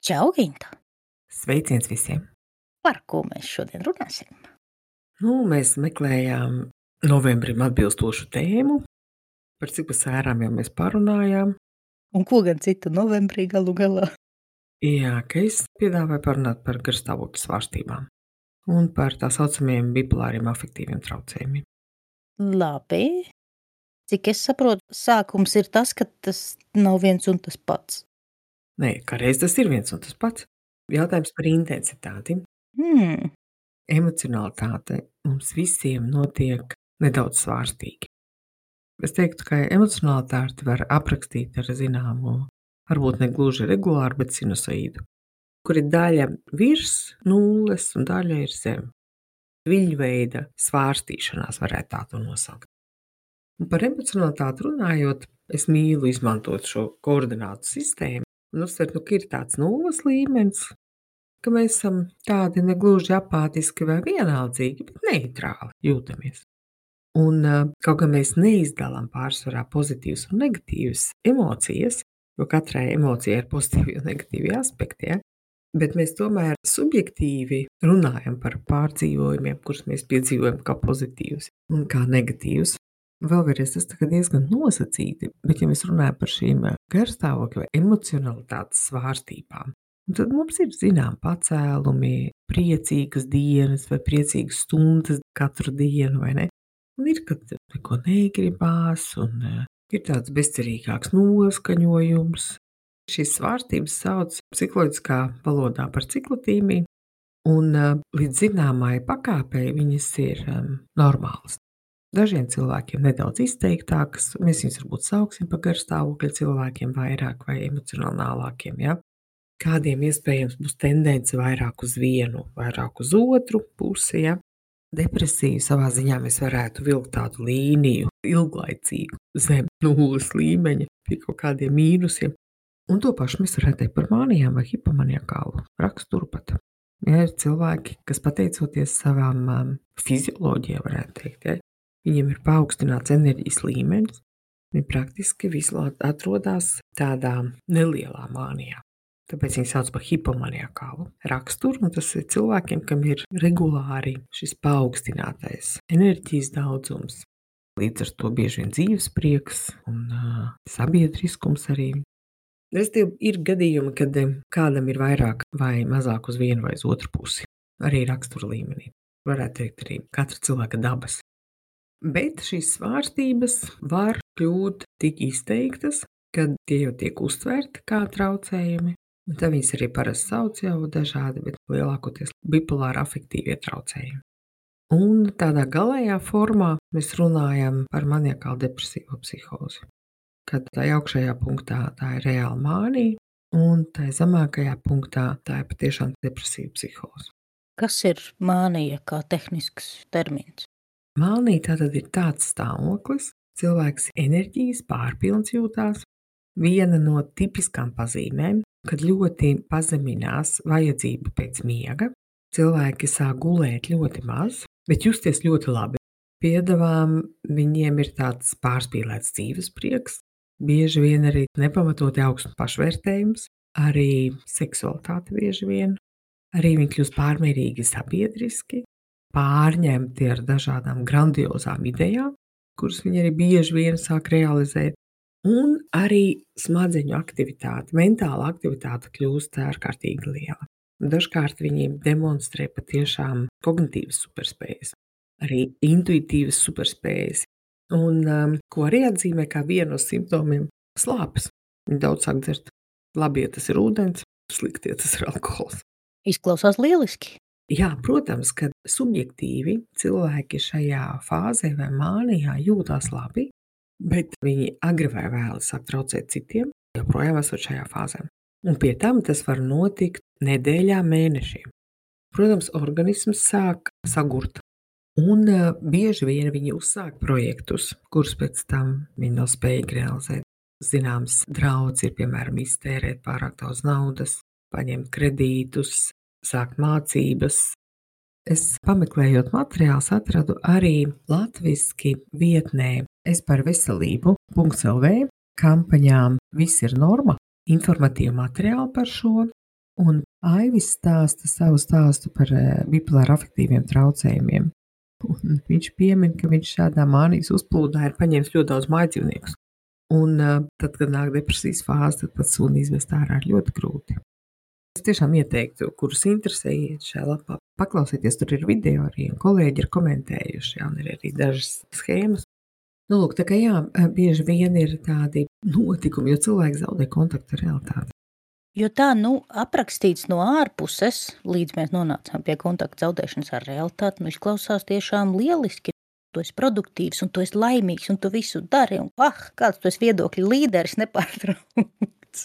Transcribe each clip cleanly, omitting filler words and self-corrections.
Čau, Ginta! Sveiciens visiem! Par ko mēs šodien runāsim? Mēs meklējām novembrim atbilstošu tēmu, par cik pa sērām jau mēs parunājām. Un ko gan citu novembrī galu galā? Jā, ka es piedāvāju parunāt par garstāvokļa svārstībām un par tā saucamiem bipolāriem afektīviem traucējumiem. Labi. Cik es saprotu, sākums ir tas, ka tas nav viens un tas pats. Nē, kādreiz tas ir viens un tas pats. Jautājums par intensitāti. Emocionalitāte mums visiem notiek nedaudz svārstīgi. Es teiktu, ka emocionalitāti var aprakstīt ar zināmu, varbūt ne gluži regulāru, bet sinusoīdu, kur ir daļa virs nulles un daļa ir zem. Viļņveida svārstīšanās varētu tā to nosaukt. Un par emocionalitāti runājot, es mīlu izmantot šo koordinātu sistēmu un uzsvert, ka ir tāds nulles līmenis, ka mēs esam tādi negluži apātiski vai vienaldzīgi, bet neitrāli jūtamies. Un kaut gan mēs neizdalām pārsvarā pozitīvas un negatīvas emocijas, jo katrai emocijai ir pozitīvi un negatīvi aspekti, ja? Bet mēs tomēr subjektīvi runājam par pārdzīvojumiem, kurus mēs piedzīvojam kā pozitīvus un kā negatīvus. Vēlreiz tas diezgan nosacīti, bet ja mēs runājam par šīm garstāvokļa vai emocionalitātes svārstībām, tad mums ir zinām pacēlumi, priecīgas dienas vai priecīgas stundas katru dienu, vai ne? Un ir, kad neko negribās un ir tāds bezcerīgāks noskaņojums. Šīs svārstības sauc psiholoģiskā valodā par ciklotīmiju, un līdz zināmai pakāpei viņas ir normālas. Dažiem cilvēkiem nedaudz izteiktākas, mēs viņus varbūt sauksim par garstāvokļa cilvēkiem vairāk vai emocionālākiem, ja? Kādiem iespējams būs tendence vairāk uz vienu, vairāk uz otru pusi, ja? Depresiju savā ziņā mēs varētu vilkt tādu līniju, ilglaicīgu, zem nulles līmeņa, pie kaut kādiem mīnusiem. Un to pašu mēs varētu teikt par mānijām vai hipomaniakālu raksturu pat. Ja ir cilvēki, kas pateicoties savām fizioloģijām, varētu teikt, ja, viņiem ir paaugstināts enerģijas līmenis, viņi praktiski visu atrodas tādā nelielā mānijā. Tāpēc viņi sauc par hipomaniakālu raksturu, un tas ir cilvēkiem, kam ir regulāri šis paaugstinātais enerģijas daudzums. Līdz ar to bieži vien dzīves prieks un sabiedriskums arī. Ir gadījumi, kad kādam ir vairāk vai mazāk uz vienu vai uz otru pusi, arī rakstura līmenī. Varētu teikt arī katra cilvēka dabas. Bet šīs svārstības var kļūt tik izteiktas, kad tie jau tiek uztverti kā traucējumi. Un tad viņas arī parasti sauc jau dažādi, bet lielākoties bipolāri afektīvie traucējumi. Un tādā galējā formā mēs runājam par maniakālu depresīvo psihozi. Kad tā augšējā punktā tā ir reāla mānija, un tā zemākajā punktā tā ir patiešām depresīva psihoze. Kas ir mānija kā tehnisks termins? Mānija tātad ir tāds stāvoklis, cilvēks enerģijas pārpilns jūtās. Viena no tipiskām pazīmēm, kad ļoti pazeminās vajadzība pēc miega, cilvēki sāk gulēt ļoti maz, bet justies ļoti labi. Piedāvām viņiem ir tāds pārspīlēts dzīves prieks, bieži vien arī nepamatoti augsts pašvērtējums, arī seksualitāte bieži vien, arī viņi kļūst pārmērīgi sabiedriski, pārņemti ar dažādām grandiozām idejām, kuras viņi arī bieži vien sāk realizēt, un arī smadzeņu aktivitāte, mentāla aktivitāte kļūst ārkārtīgi liela. Dažkārt viņi demonstrē patiešām kognitīvas superspējas, arī intuitīvas superspējas. Un ko arī atzīmē kā vienu no simptomiem - slāpes. Viņi daudz sāk dzert. Labi, ja tas ir ūdens, slikti, ja tas ir alkohols. Izklausās lieliski. Jā, protams, ka subjektīvi cilvēki šajā fāzē vai mānijā jūtās labi, bet viņi agri vai vēli sāk traucēt citiem, joprojām esot šajā fāzē. Un pie tam tas var notikt nedēļām, mēnešiem. Protams, organisms sāk sagurt. Un bieži vien viņi uzsāk projektus, kurus pēc tam viņi nav spējīgi realizēt. Zināms, draudz ir, piemēram, iztērēt pārāk daudz naudas, paņemt kredītus, sākt mācības. Es pameklējot materiālus atradu arī latviski vietnē esparveselību.lv kampaņām Viss ir norma, informatīvu materiālu par šo. Un Aivis stāsta savu stāstu par bipolāri afektīviem traucējumiem. Un viņš piemin, ka viņš šādā mānijas uzplūdā ir paņēmis ļoti daudz mājdzīvniekus. Un tad, kad nāk depresijas fāze, tad pat suni izvest ārā ir ļoti grūti. Es tiešām ieteiktu, kurus interesē iet šajā lapā, paklausieties, tur ir video arī, un kolēģi ir komentējuši, un ir arī dažas schēmas. Nu, lūk, tā kā jā, bieži vien ir tādi notikumi, jo cilvēki zaudē kontaktu ar realitāti. Jo tā, aprakstīts no ārpuses, līdz mēs nonācām pie kontakta zaudēšanas ar realitāti, izklausās tiešām lieliski. Tu esi produktīvs, un tu esi laimīgs, un tu visu dari, un kāds tu esi viedokļu līderis nepārtraukts.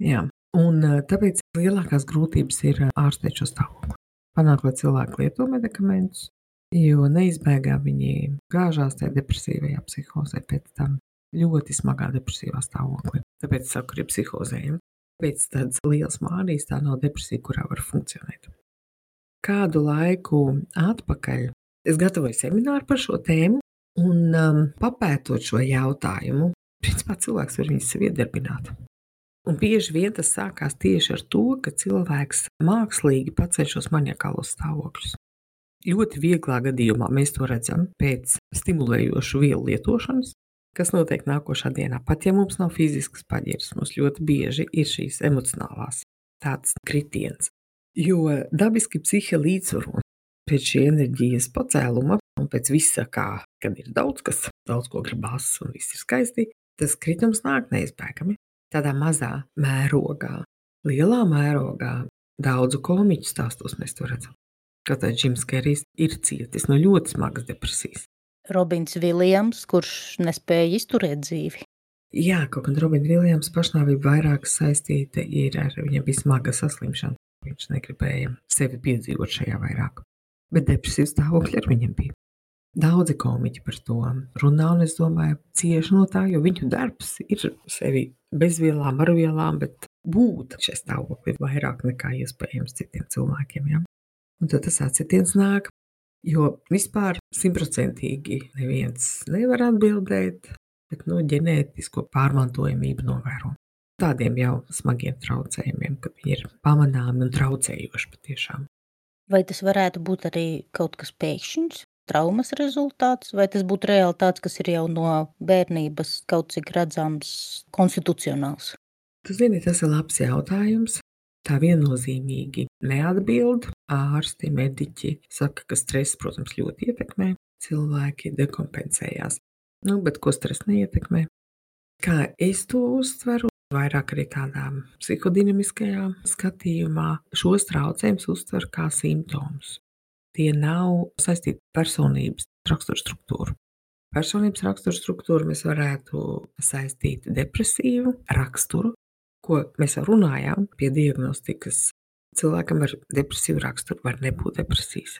Jā, un tāpēc lielākās grūtības ir ārstēt šo stāvokli. Panākt, lai cilvēki lieto medikamentus, jo neizbēgā viņi gāžās tajā depresīvajā psihozē pēc tam ļoti smagā depresīvā stāvoklī. Tāpēc saku, ir psihozējumi. Pēc tādas liels mānijas tā nav depresija, kurā var funkcionēt. Kādu laiku atpakaļ es gatavoju semināru par šo tēmu un papētot šo jautājumu, principā cilvēks var viņus sev iedarbināt. Un bieži vien tas sākās tieši ar to, ka cilvēks mākslīgi paceļ šos maniakālos stāvokļus. Ļoti vieglā gadījumā mēs to redzam pēc stimulējošu vielu lietošanas, kas notiek nākošā dienā. Pat ja mums nav fiziskas paģiras, mums ļoti bieži ir šīs emocionālās tāds kritiens. Jo dabiski psihe līdzsvaro pēc šī enerģijas pacēluma un pēc visa kā, kad ir daudz ko gribas un viss ir skaisti, tas kritums nāk neizbēgami. Tādā mazā mērogā, lielā mērogā daudzu komiķu stāstos mēs to redzam. Kaut arī Džims Kerijs ir cietis no ļoti smagas depresijas. Robins Viljams, kurš nespēja izturēt dzīvi. Jā, kaut gan Robina Viljams pašnāvība vairāk saistīta ir ar viņam bija smaga saslimšana. Viņš negribēja sevi piedzīvot šajā vairāk. Bet depresijas stāvokļi ar viņam bija. Daudzi komiķi par to runā, un es domāju, cieši no tā, jo viņu darbs ir sevi bez vielām, ar vielām, bet būt šajā stāvoklī vairāk nekā iespējams citiem cilvēkiem. Ja? Un tad tas atsitiens nāk. Jo vispār 100% neviens nevar atbildēt, bet ģenētisko pārmantojamību novēro. Tādiem jau smagiem traucējumiem, kad viņi ir pamanāmi un traucējoši patiešām. Vai tas varētu būt arī kaut kas pēkšņs, traumas rezultāts, vai tas būtu realitāts, kas ir jau no bērnības kaut cik redzams konstitucionāls? Tu zini, tas ir labs jautājums. Tā viennozīmīgi neatbild. Ārsti, mediķi saka, ka stress, protams, ļoti ietekmē. Cilvēki dekompensējās. Bet ko stress neietekmē? Kā es to uztveru, vairāk arī tādā psihodinamiskajā skatījumā, šos traucējumus uztver kā simptomus. Tie nav saistīti personības raksturstruktūru. Personības raksturstruktūru mēs varētu saistīt depresīvu raksturu, ko mēs jau runājām pie diagnostikas. Cilvēkam ar depresīvu raksturu var nebūt depresijas.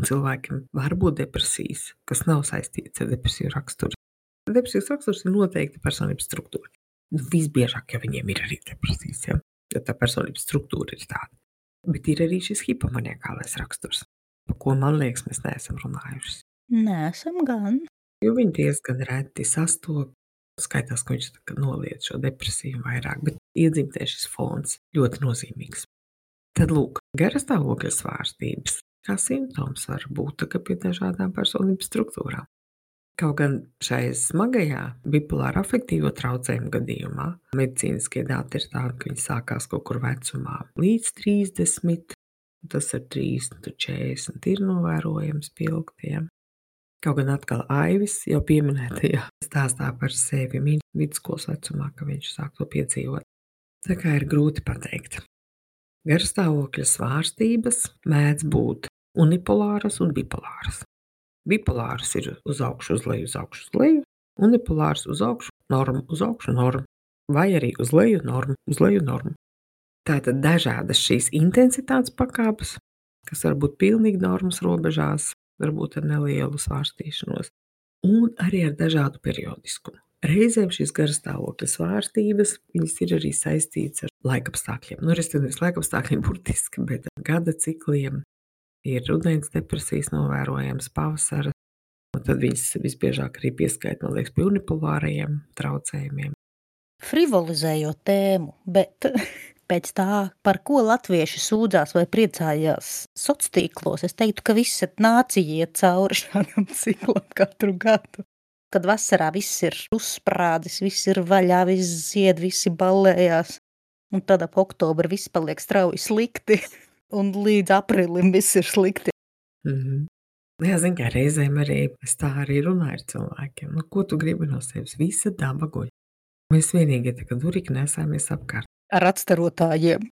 Cilvēkam var būt depresijas, kas nav saistīts ar depresīvu raksturu. Depresīvs raksturs ir noteikti personības struktūra. Visbiežāk jau viņiem ir arī depresijas, ja? Jo tā personības struktūra ir tāda. Bet ir arī šis hipomaniakālais raksturs, par ko, man liekas, mēs neesam runājuši. Neesam gan. Jo viņi diezgan reti sastop. Skaitās, ka viņš noliedz šo depresiju vairāk, bet iedzimtē šis fons ļoti nozīmīgs. Tad lūk, garas stāvokļa svārstības kā simptoms var būt pie dažādām personības struktūrām. Kaut gan šai smagajā bipolāra afektīvo traucējumu gadījumā medicīniskie dati ir tādi, ka viņi sākās kaut kur vecumā līdz 30, tas ar 30, 40 ir novērojams pilgtiem. Kaut gan atkal Aivis jau pieminētajā stāstā par sevi vidusskolas vecumā, ka viņš sāk to piedzīvot. Tā kā ir grūti pateikt. Garstāvokļa svārstības mēdz būt unipolāras un bipolāras. Bipolāras ir uz augšu, uz leju, uz augšu, uz leju, unipolāras uz augšu, norma, uz augšu, norma, vai arī uz leju, norma, uz leju, norma. Tātad dažādas šīs intensitātes pakāpes, kas var būt pilnīgi normas robežās, varbūt ar nelielu svārstīšanos, un arī ar dažādu periodiskumu. Reizēm šīs garstāvokļa svārstības, viņas ir arī saistītas ar laikapstākļiem. Respektīvi, laikapstākļiem burtiski, bet gada cikliem ir rudens depresijas novērojams, pavasara, un tad viņas visbiežāk arī pieskaita, man liekas, pie unipolārajiem traucējumiem. Frivolizējot tēmu, bet Pēc tā, par ko latvieši sūdzās vai priecājās sociālos, es teiktu, ka visa nācija iet cauri šādam ciklam katru gadu. Kad vasarā viss ir uzsprādzis, viss ir vaļā, viss zied, visi ballējās. Un tad ap oktobru viss paliek strauji slikti, un līdz aprīlim viss ir slikti. Jā, zin kā reizēm arī es tā arī runāju ar cilvēkiem. Nu, ko tu gribi no sevis? Visa daba guļ. Mēs vienīgie tā kā durīgi nesāmies apkārt. Ar atstarotājiem.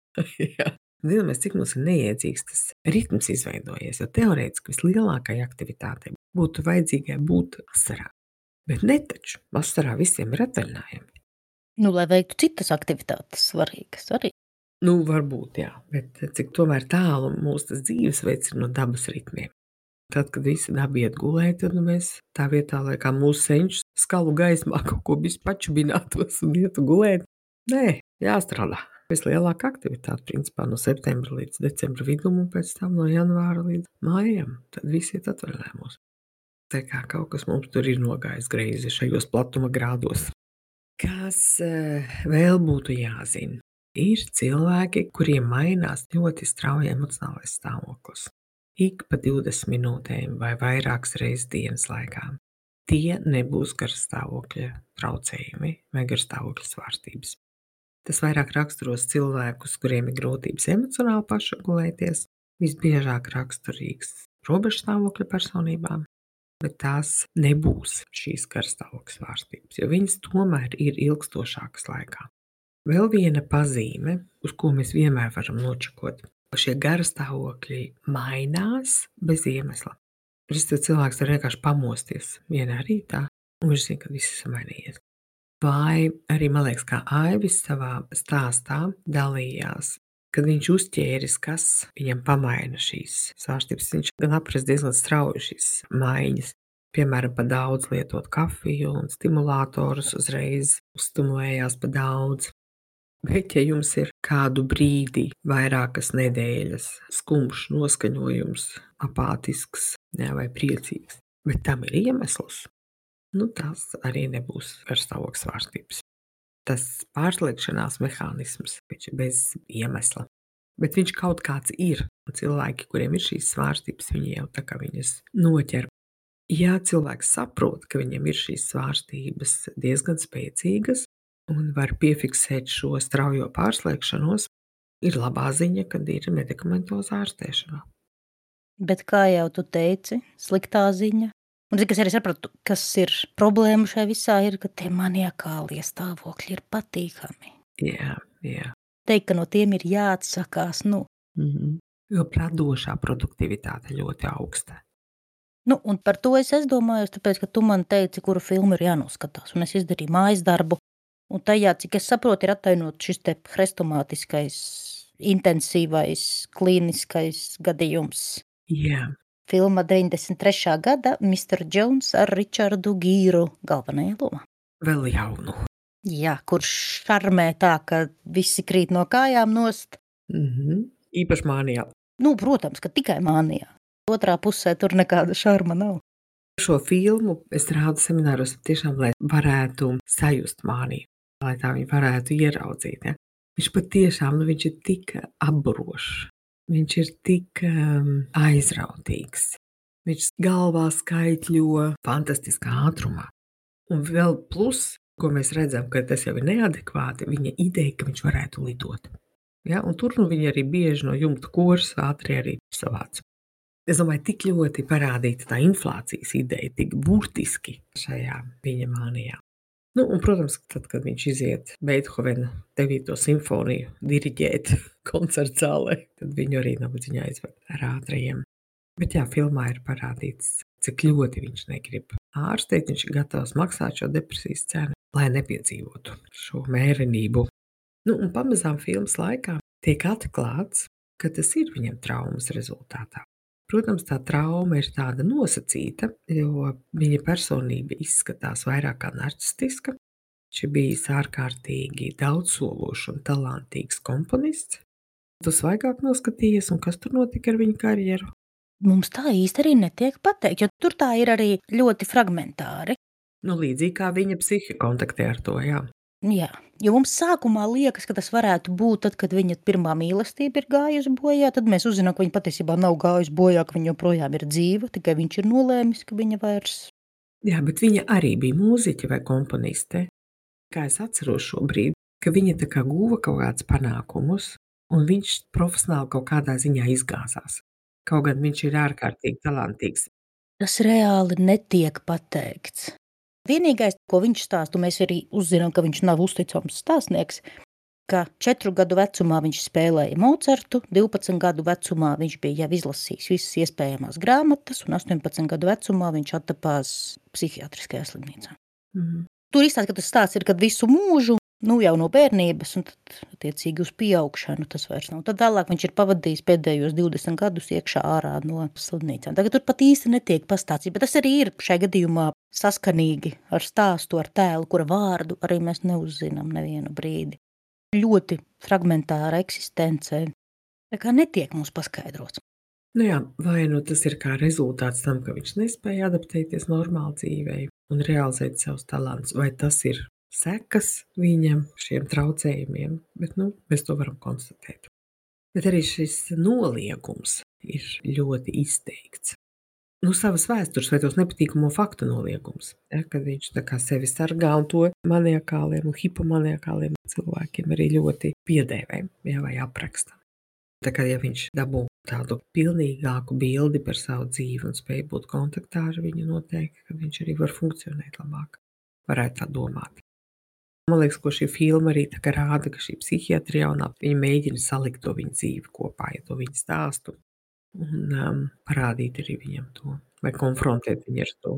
Jā. Zinamies, cik mums ir neiedzīgs tas ritms izveidojies, jo teorētiski vislielākai aktivitātei būtu vajadzīgai būt vasarā. Bet ne taču. Vasarā visiem ir atvaļinājumi. Nu, lai veiktu citas aktivitātes svarīgas arī. Nu, varbūt, jā. Bet cik tomēr tālu mūsu tas dzīvesveids ir no dabas ritmiem. Tad, kad visi daba iet gulēt, tad mēs tā vietā, lai kā mūsu senčus skalu gaismā kaut ko pačubinātos un ietu gulēt. Nē, jāstrādā. Vislielākā aktivitāte, principā, no septembra līdz decembra vidum un pēc tam no janvāra līdz mājam. Tad visi iet atvaļinājumos. Tā kā kaut kas mums tur ir nogājis greizi šajos platuma grādos. Kas vēl būtu jāzina? Ir cilvēki, kuriem mainās ļoti strauji emocionālais stāvoklis. Ik pa 20 minūtēm vai vairākas reizes dienas laikā. Tie nebūs garstāvokļa traucējumi vai garstāvokļa svārstības. Tas vairāk raksturos cilvēkus, kuriem ir grūtības emocionāli pašregulēties, visbiežāk raksturīgs robežstāvokļa personībām, bet tās nebūs šīs garstāvokļa svārstības, jo viņas tomēr ir ilgstošākas laikā. Vēl viena pazīme, uz ko mēs vienmēr varam nočakot, ka šie garstāvokļi mainās bez iemesla. Cilvēks var vienkārši pamosties vienā rītā, un viņš zina, ka viss ir mainījies. Vai arī, man liekas, kā Aivis savā stāstā dalījās, kad viņš uzķēris, kas viņam pamaina šīs svārstības. Viņš gan aprast diezgan strauji šīs maiņas. Piemēram, pa daudz lietot kafiju un stimulātorus uzreiz uzstimulējās pa daudz. Bet, ja jums ir kādu brīdi, vairākas nedēļas, skumjš noskaņojums, apātisks vai priecīgs, bet tam ir iemesls, nu tas arī nebūs garstāvokļa svārstības. Tas pārslēgšanās mehānisms, viņš ir bez iemesla, bet viņš kaut kāds ir. Un cilvēki, kuriem ir šīs svārstības, viņi jau tā kā viņas noķer. Ja cilvēks saprot, ka viņam ir šīs svārstības diezgan spēcīgas, un var piefiksēt šo straujo pārslēgšanos, ir labā ziņa, kad ir medikamentozā ārstēšanā. Bet, kā jau tu teici, sliktā ziņa, un cik es arī sapratu, kas ir problēma šai visā, ir, ka tie maniakālie stāvokļi ir patīkami. Jā. Teikt, ka no tiem ir jāatsakās, Jo radošā produktivitāte ļoti augsta. Nu, un par to es domāju, tāpēc, ka tu man teici, kuru filmu ir jānoskatās, un es izdarīju mājas darbu. Un tajā, cik es saprotu, ir attainot šis te hrestomātiskais, intensīvais, klīniskais gadījums. Jā. Filma 93. gada Mr. Jones ar Richardu Gīru galvenajā lomā. Vēl jaunu. Jā, kurš šarmē tā, ka visi krīt no kājām nost. Īpaši mānijā. Nu, protams, ka tikai mānijā. Otrā pusē tur nekāda šarma nav. Šo filmu es rādu semināros tiešām, lai varētu sajust māniju, lai tā viņi varētu ieraudzīt. Ja? Viņš patiešām, viņš ir tik apburošs, viņš ir tik aizrautīgs, viņš galvā skaitļo fantastiskā ātrumā. Un vēl plus, ko mēs redzam, ka tas jau ir neadekvāti, viņa ideja, ka viņš varētu lidot. Ja? Un tur viņi arī bieži no jumta koras ātri arī savāca. Es domāju, tik ļoti parādīta tā inflācijas ideja, tik burtiski šajā viņa mānijā. Nu, un, protams, tad, kad viņš iziet Beethovena 9. simfoniju diriģēt koncerta zālē, tad viņu arī nabadzīņā aizved ar ātrajiem. Bet jā, filmā ir parādīts, cik ļoti viņš negrib ārstēt, viņš ir gatavs maksāt šo depresijas cenu, lai nepiedzīvotu šo mērenību. Nu, un pamazām filmas laikā tiek atklāts, ka tas ir viņam traumas rezultātā. Protams, tā trauma ir tāda nosacīta, jo viņa personība izskatās vairāk kā narcistiska. Viņš ir bijis ārkārtīgi daudzsološs un talantīgs komponists. Tu svaigāk noskatījies, un kas tur notika ar viņa karjeru? Mums tā īsti arī netiek pateikt, jo tur tā ir arī ļoti fragmentāri. Nu, līdzīgi kā viņa psihi kontaktē ar to, jā. Jā, jo mums sākumā liekas, ka tas varētu būt tad, kad viņa pirmā mīlestība ir gājusi bojā, tad mēs uzzinām, ka viņa patiesībā nav gājusi bojā, ka viņa joprojām ir dzīva, tikai viņš ir nolēmis, ka viņa vairs. Jā, bet viņa arī bija mūziķe vai komponiste. Kā es atceros šobrīd, ka viņa tā kā guva kaut kādus panākumus, un viņš profesionāli kaut kādā ziņā izgāzās. Kaut gan viņš ir ārkārtīgi talantīgs. Tas reāli netiek pateikts. Vienīgais, ko viņš stāsta, un mēs arī uzzinām, ka viņš nav uzticams stāstnieks, ka 4 gadu vecumā viņš spēlēja Mocartu, 12 gadu vecumā viņš bija jau izlasījis visas iespējamās grāmatas, un 18 gadu vecumā viņš attapās psihiatriskajā slimnīcā. Tur izstāsta, ka tas stāsts ir, kad visu mūžu, jau no bērnības, un tad, attiecīgi, uz pieaugšanu tas vairs nav. Tad vēlāk viņš ir pavadījis pēdējos 20 gadus iekšā ārā no slimnīcām. Tagad tur pat īsti netiek pastāstīts, bet tas arī ir šajā gadījumā saskanīgi ar stāstu, ar tēlu, kura vārdu arī mēs neuzzinām nevienu brīdi. Ļoti fragmentāra eksistence, tā kā netiek mums paskaidrots. Nu jā, vai nu tas ir kā rezultāts tam, ka viņš nespēja adaptēties normāli dzīvei un realizēt savus talantus, vai tas ir sekas viņam šiem traucējumiem, bet mēs to varam konstatēt. Bet arī šis noliegums ir ļoti izteikts. Savas vēstures vai tos nepatīkamo faktu noliegums, kad viņš tā kā sevi sargā, un to maniakāliem un hipomaniakāliem cilvēkiem arī ļoti piedēvē, vai apraksta. Tā kā ja viņš dabū tādu pilnīgāku bildi par savu dzīvi un spēj būt kontaktā ar viņu, noteikti, ka viņš arī var funkcionēt labāk. Varētu tā domāt. Man liekas, ko šī filma arī tā kā rāda, ka šī psihiatri jaunā, viņa mēģina salikt to viņa dzīvi kopā, to viņa stāstu, un parādīt arī viņam to, vai konfrontēt viņu ar to.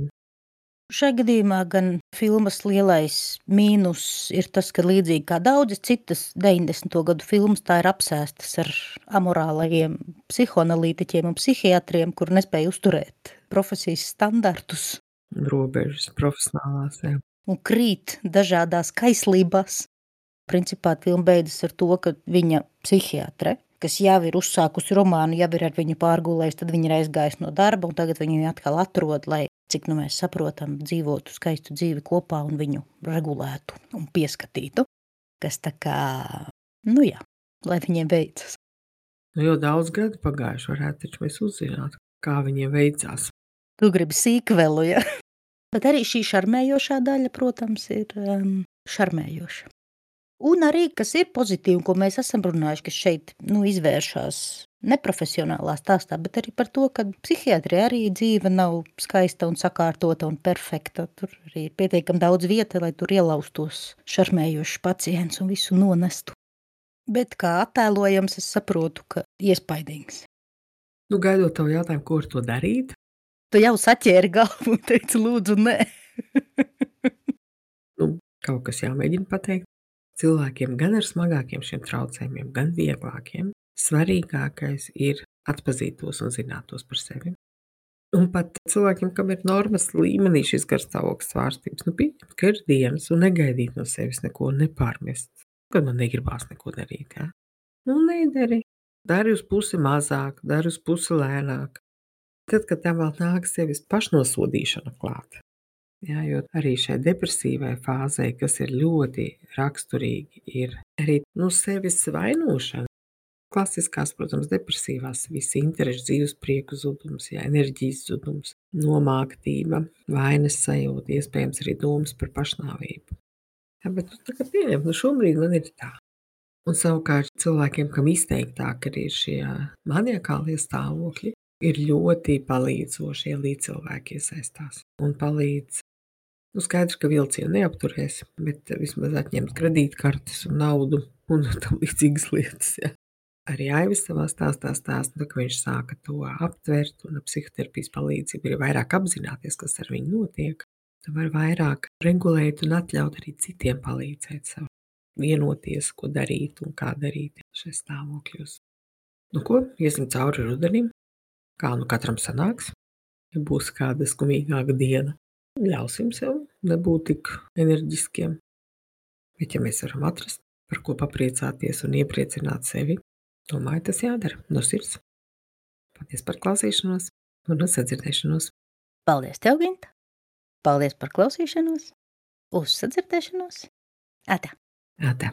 Šajā gadījumā gan filmas lielais mīnus ir tas, ka līdzīgi kā daudzas citas 90. gadu filmas, tā ir apsēstas ar amorālajiem psihoanalītiķiem un psihiatriem, kur nespēja uzturēt profesijas standartus. Robežas profesionālās, jā. Un krīt dažādās kaislībās. Principā filma beidzas ar to, ka viņa psihiatre, kas jau ir uzsākusi romānu, jau ir ar viņu pārgulējis, tad viņa ir aizgājis no darba, un tagad viņu atkal atrod, lai, cik mēs saprotam, dzīvotu skaistu dzīvi kopā un viņu regulētu un pieskatītu, kas tā kā, lai viņiem veicas. Jau daudz gadu pagājuši, varētu taču mēs uzzināt, kā viņiem veicās. Tu gribi sīkvelu, ja? Bet arī šī šarmējošā daļa, protams, ir šarmējoša. Un arī, kas ir pozitīvi, ko mēs esam runājuši, ka šeit izvēršās neprofesionālā stāstā, bet arī par to, ka psihiatrija arī dzīve nav skaista un sakārtota un perfekta. Tur arī ir pietiekami daudz vieta, lai tur ielaustos šarmējošs pacients un visu nonestu. Bet kā attēlojams, es saprotu, ka iespaidīgs. Gaidot tavu jautājumu, ko ar to darīt? Tu jau saķēri galvu un teici, lūdzu, nē. Kaut kas jāmēģina pateikt. Cilvēkiem gan ar smagākiem šiem traucējumiem, gan vieglākiem, svarīgākais ir atpazīt tos un zināt tos par sevi. Un pat cilvēkiem, kam ir normas līmenī šis garstāvokļa svārstības, pieņemt, ka ir dienas un negaidīt no sevis neko, nepārmest, kad man negribās neko darīt. Ja? Nedari. Dari uz pusi mazāk, dari uz pusi lēnāk. Tad, kad tam vēl nāk sevis pašnosodīšana klāt. Jā, jo arī šai depresīvai fāzei, kas ir ļoti raksturīgi, ir arī sevis vainošana. Klasiskās, protams, depresīvās, visi interešu dzīves prieku zudums, enerģijas zudums, nomāktība, vainas sajūta, iespējams arī domas par pašnāvību. Jā, bet tagad pieņem, šobrīd man ir tā. Un savukārt cilvēkiem, kam izteiktāk arī šie maniakālie stāvokļi, ir ļoti palīdzoši, ja līdzcilvēki iesaistās un palīdz. Skaidrs, ka vilcienu neapturēs, bet vismaz atņemt kredītkartes un naudu un tam līdzīgas lietas. Ja. Arī Aivis savā stāstā, ka viņš sāka to aptvert un ar psihoterapijas palīdzību ir vairāk apzināties, kas ar viņu notiek. Tu var vairāk regulēt un atļaut arī citiem palīdzēt sev, vienoties, ko darīt un kā darīt šajos stāvokļos. Ko, iesim cauri rudenim. Kā katram sanāks, ja būs kāda skumīgāka diena, ļausim sev nebūt tik enerģiskiem. Bet ja mēs varam atrast, par ko papriecāties un iepriecināt sevi, domāju, tas jādara no sirds. Paldies par klausīšanos un sadzirdēšanos. Paldies tev, Ginta! Paldies par klausīšanos! Uz sadzirdēšanos! Atā! Tā.